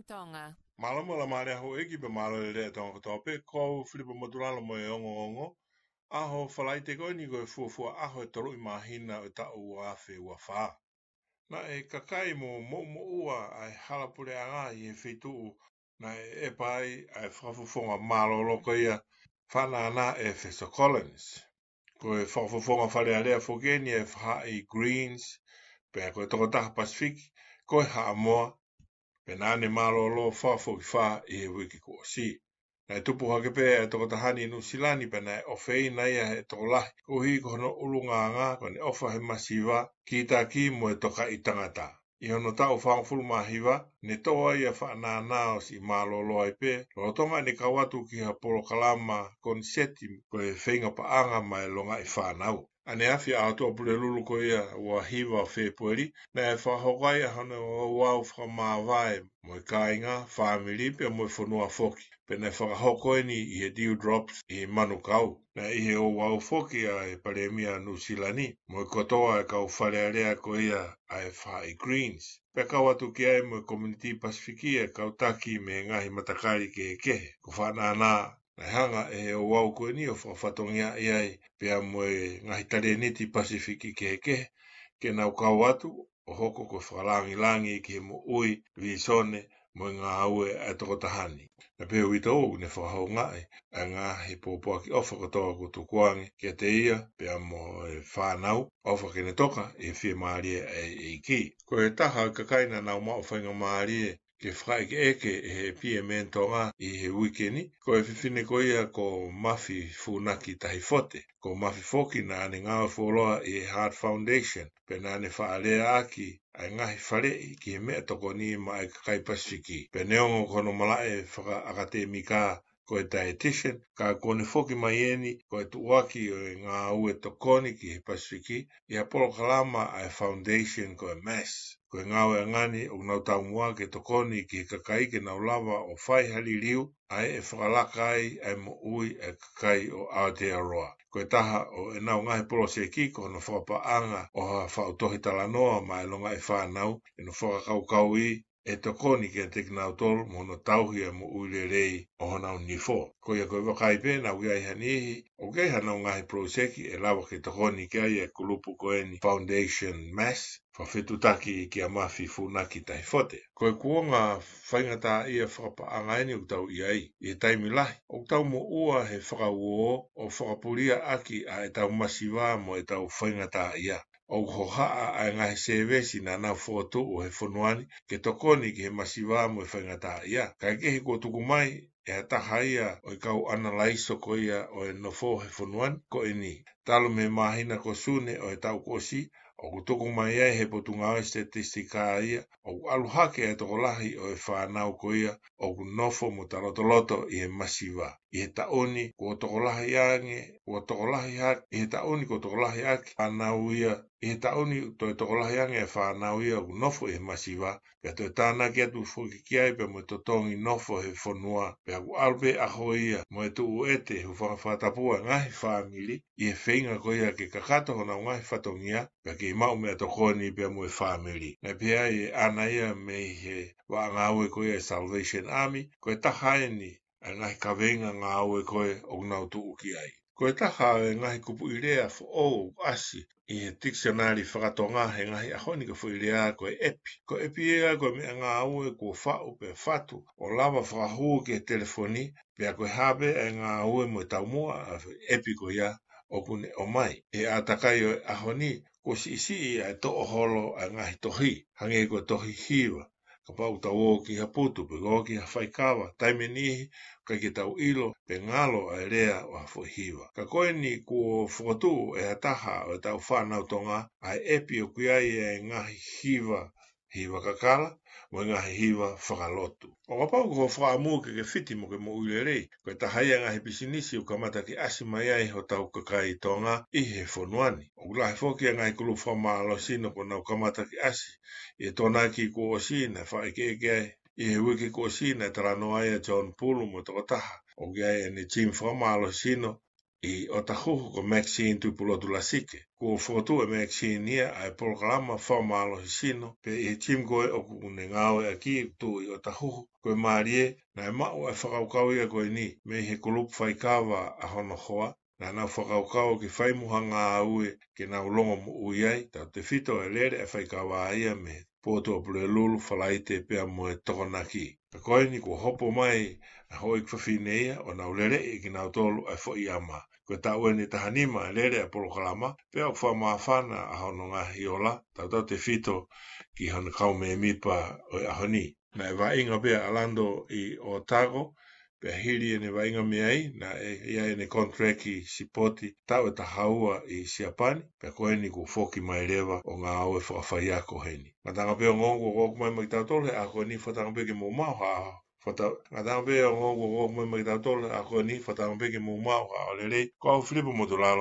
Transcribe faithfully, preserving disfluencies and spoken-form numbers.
Tonga. Mālō mo e laumālie ʻa houʻeiki pea mālō e lelei ʻa Tonga kotoa pē, ko au Filipa Motulalo mo e ongoongo. ʻAho Falaite ko eni ko e fuofua ʻaho ʻe tolu ʻi māhina ʻo e taʻu ua afe ua fā. Naʻe kakai mo moʻumoʻua ʻa e hala puleʻanga ʻi he feituʻu naʻe ʻepa ai ʻa e fakafofonga mālōlō ko ia Fanaʻana ʻEfeso Collins. Ko e fakafofonga Fale Alea foki eni ʻa e faʻahi Greens, pea ko e tokotaha Pasifiki ko e Haʻamoa, pea naʻa ne mālōlō fakafokifā ʻi he uike kuo ʻosi. Naʻe tupu hake pē ʻa e tokotaha ni ʻi Nuʻusila ni pea naʻe ʻofeina ia ʻe he tokolahi koeʻuhi ko hono ʻulungaanga, ko ʻene ʻofa he masiva, kītaki mo e tokaʻi tangata. ʻI hono taʻu fāngofulu mā hiva, ne tō ai ʻa Fanaʻana ʻo siʻi mālōlō ai pē, lolotonga ʻene kau atu ki ha polokalama koniseti ko e feinga paʻanga maʻa e longaʻi fānau. ʻAneafi ʻa e ʻaho Pulelulu ko ia ua hiva Fēpueli, naʻe fakahoko ai ʻa hono ouau fakamāvae mo e kāinga, fāmili pea mo e fonua foki. Pea naʻe fakahoko eni ʻi he Dewdrops ʻi Manukau. Naʻe ʻi he ouau foki ʻa e Palēmia Nuʻusila ni mo e kotoa e kau Fale Alea ko ia ʻa e faʻahi Greens. Pea kau atu ki ai mo e Community Pasifiki ʻa e kau taki mei he ngaahi matakali kehekehe. Ko Fanaʻana naʻe hanga ʻe he ouau ko eni ʻo fakafatongiaʻi ai pea mo e ngaahi talēniti Pasifiki kehekehe ke nau kau atu ʻo hoko ko e fakalangilangi ki he moʻui, vīsone mo e ngāue ʻa e tokotaha ni. Naʻe pehē ʻe he uitou ʻoku ne fakahoungaʻi ʻa e ngaahi pōpoaki ʻofa kotoa kuo tukuange kiate ia pea mo e fānau, ʻofa ke ne toka ʻi he fiemālie ʻa e ʻEiki. Ko e taha ʻo e kakai naʻa nau maʻu faingamālie ke fakaʻekeʻeke ʻe he P M N Tonga ʻi he uike ni, ko e fefine ko ia ko Mafi Funaki Tahifote. Ko Mafi foki naʻa ne ngāue fuoloa ʻi he Heart Foundation, pea naʻa ne faʻa leaʻaki ʻa e ngaahi faleʻi ki he meʻatokoni maʻa e kakai Pasifiki. Pea neongo ko hono malaʻe fakaʻakatēmika ko e dietitian, ka kuo ne foki mai eni ko e tuʻuaki ʻo e ngāue tokoni ki he Pasifiki ʻi ha polokalama ā e foundation ko e MASS. Ko e ngāueʻanga ni ʻoku nau taumuʻa ke tokoni ki he kakai ke nau lava ʻo fai ha liliu ʻa ia ʻe fakalaka ai ʻa e moʻui ʻa e kakai ʻo Aotearoa. Ko e taha ʻo ʻenau ngaahi poloseki ko hono fakapaʻanga ʻo ha faʻu tohi talanoa maʻa e longaʻi fānau ʻi hono fakakaukauʻi ʻe tokoni kiate kinautolu mo hono tauhi ʻa e moʻui lelei ʻo honau nifo. Ko ia ko e vakai pē naʻa ʻoku ʻi ai ha niʻihi ʻoku ʻi ai haʻanau ngaahi poloseki ʻe lava ke tokoni ki ai ʻa e kulupu ko eni Foundation MASS, fakafetuʻutaki kia Mafi Funaki Tahifote. Ko e kuonga faingataʻaʻia fakapaʻanga eni ʻoku tau ʻi ai. ʻI he taimi lahi ʻoku tau moʻua he fakauō ʻo fakapuliaʻaki ʻa ʻetau masiva mo ʻetau faingataʻaʻia. ʻOku hohaʻa ʻa e ngaahi sēvesi naʻa nau fokotuʻu he fonua ni ke tokoni ki he masiva mo e faingataʻaʻia. Kaekehe kuo tuku mai ʻe ha taha ia ʻo e kau ʻanalaiso ko ia ʻo e nofo he fonua ni ko eni. Talu mei he māhina ko Sune ʻo e taʻu kuo ʻosi, ʻoku tuku mai ai ʻe he Potungāue Sitetisika ia ʻoku ʻalu hake ʻa e tokolahi ʻo e fānau ko ia ʻoku nofo mo talotoloto ʻi he masiva. ʻI he taʻu ni kuo tokolahi ange, kuo tokolahi hake, ʻi he taʻu ni kuo tokolahi ʻaki fānau ia, ʻi he taʻu ni toe tokolahi ange ʻa e fānau ia ʻoku nofo ʻi he masiva, pea toe tānaki atu foki ki ai pea mo e totongi nofo he fonua, pea ʻoku ʻalu pē ʻaho ia mo e tuʻu ʻete hūfanga fakatapu ʻa e ngaahi fāmili ʻi he feinga ko ia ke kakato honau ngaahi fatongia, pea kei maʻu meʻatokoni pea mo e fāmili. Naʻe pehē ai ʻe ʻAna ia mei he vaʻa ngāue ko ia ʻa e Salvation Army, ko e taha eni ʻa e ngaahi kaveinga ngāue ko ē ʻoku nau tuʻu ki ai. Ko e taha ʻo e ngaahi kupuʻi lea foʻou ʻoku ʻasi ʻi he tikisionale faka-Tonga he ngaahi ʻaho ni ko e foʻi lea ko e ʻepi. Ko e ʻepi ia ko e meʻangāue kuo faʻu pea fatu ʻo lava fakahū ki he telefoni, pea ko e hā pē ʻa e ngāue mo e taumuʻa ʻa e ʻepi ko ia ʻoku ne ʻomai. ʻI he ʻātakai ʻo e ʻaho ni, kuo siʻisiʻi ʻa e toʻoholo ʻa e ngaahi tohi, hangē ko e tohi hiva. Kapau ʻoku tau ō ki ha putu pe ō ki ha faikava, taimi ʻe niʻihi ʻoku ʻikai ke tau ʻilo pe ngalo ʻa e lea ʻo ha foʻi hiva. Ka ko eni kuo fokotuʻu ʻe ha taha ʻo ʻetau fānau Tonga ʻa e ʻepi ʻoku ʻi ai ʻa e ngaahi hiva, hiva kakala, mo e ngaahi hiva fakalotu. ʻO kapau ko hoʻo fakaʻamu ke ke fiti mo ke moʻui lelei, ko e taha ia ʻa e ngaahi pisinisi ʻoku kamata ke ʻasi mai ai hotau kakai Tonga ʻi he fonua ni. ʻOku lahi foki ʻa e ngaahi kulupu fakamālohisino kuo nau kamata ke ʻasi. ʻI he Tokonaki kuo ʻosi naʻe fakaʻekeʻeke ai. ʻI he uike kuo ʻosi naʻe talanoa ai ʻa John Pulu mo e tokotaha ʻoku ʻi ai ʻene team fakamālohisino ʻi ʻOtahuhu ko Maxine Tuʻipulotu Lasike. Kuo fokotuʻu ʻe Maxine ia ʻa e polokalama fakamālohisino pē ʻi he gym ko ē ʻoku ne ngāueʻaki ʻi ʻOtahuhu. Ko e mālie, naʻe maʻu ʻa e fakakaukau ia ko eni mei he kulupu faikava ʻa hono hoa, naʻa nau fakakaukau ke fai mo ha ngāue ke nau longomoʻui ai, tautefito e lele ʻa e faikava ia mei he potu ʻo Pulelulu, Falaite pea mo e Tokonaki. Ka ko eni kuo hopo mai ʻa e houʻeiki fafine ia ʻo nau leleʻi ʻe kinautolu ʻa e foʻi ʻama. Ko e taʻu eni ʻe taha nima e lele ʻa e polokalama, pea ʻoku fakamāfana ʻa hono ngaahi ola, tautautefito ki hono kau mēmipa ʻo e ʻaho ni. Naʻe vaʻinga pē ʻa Lando ʻi Otago, pea hili ʻene vaʻinga mei ai, naʻe ʻi ai ʻene contract sipoti taʻu ʻe taha ua ʻi Siapani, pea ko eni kuo foki mai leva ʻo ngāue fakafaiako heni. Ngataʻanga pē ongoongo kuo ʻoku mai maʻa kitautolu he ʻaho ko eni, fakatauange pē ke mou maʻu ha, fakata-, ngataʻanga pē ongoongo kuo ʻoku mai maʻa kitautolu he ʻaho ko eni, fakatauange pē ke mou maʻu ha ʻaho lelei. Ko au Filipo Motulalo.